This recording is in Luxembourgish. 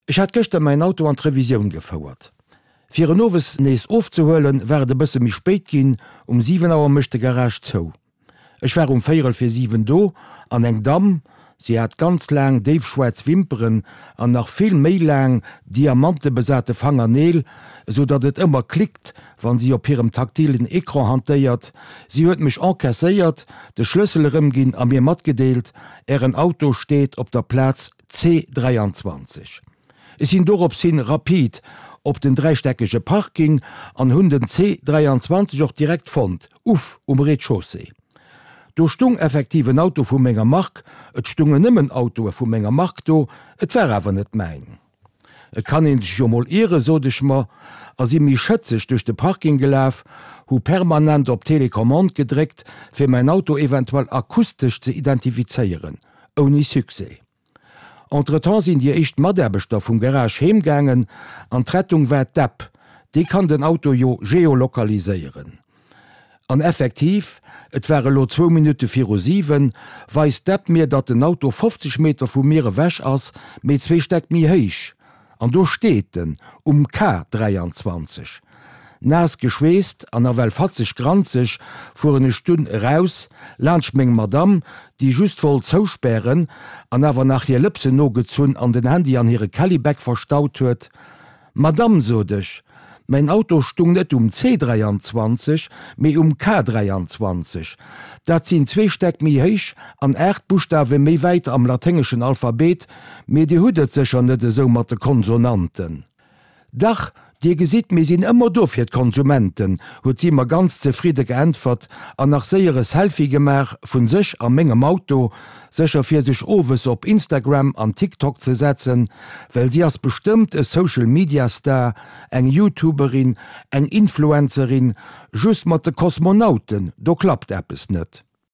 Ech hat gëschter mäin Auto an d'Revisioun gefouert. Fir en owes nees ofzehuelen, war et e bësse méi spéit ginn, um 7 Auer mécht de Garage zou. Ech war um véierel fir 7 do an eng Damm, si hat ganz laang déifschwaarz Wimperen an nach vill méi laang diamantebesate Fangerneel, esou datt et ëmmer klickt, wann si op hirem taktilen Ecran hantéiert, si huet mech encaisséiert, de Schlëssel erëmginn a mir matgedeelt, Ären Auto steet op der Plaz C 23. Ech sinn dorops hin rapid op den dräistäckege Parking an hunn den C 23 och direkt fonnt, uff, um Rez-de-chaussée. Do stung effektiv en Auto vu menger Mark, et stungen nëmmen Autoe vu menger Mark do, et war awer net mäin. Et kann een sech jo mol ieren, sot ech mer, a si méi schëtzeg duerch de Parking gelaf, hu permanent op d'Telecommande gedréckt, fir mäin Auto eventuell akustesch ze identifizéieren. Ouni Succès. Entretemps sinn déi éischt Mataarbechter vum Garage heem gaangen an d'Rettung war d'App, déi kann den Auto jo geolokaliséieren. An effektiv, et war elo zwou Minutte viru 7, weist d'App mir, datt den Auto 50 Meter vu mir ewech ass, mee zwee Stäck méi héich. An do steet en, um K 23. Naass geschweesst an nawell fatzeg granzeg fueren ech dunn eraus, laanscht meng Madamm, déi just wollt zouspären an awer nach hir Lëpsen nogezunn an den Handy an hire Kellybag verstaut huet. Madamm, sot ech, mäin Auto stung net um C 23, mee um K 23. Dat sinn zwee Stäck méi héich an 8 Buschtawe méi wäit am laténgeschen Alphabet, Mee Dir hutt et sécher net esou mat de Konsonanten. Dach, Dir gesitt, mir sinn ëmmer do fir d'Konsumenten, huet si mer ganz zefridde geäntwert an nach séier e Selfie gemaach vun sech a mengem Auto, sécher fir sech owes op Instagram an TikTok ze setzen, well si ass bestëmmt e Social Media Star, eng Youtuberin, eng Influencerin, just mat de Kosmonauten, do klappt eppes net.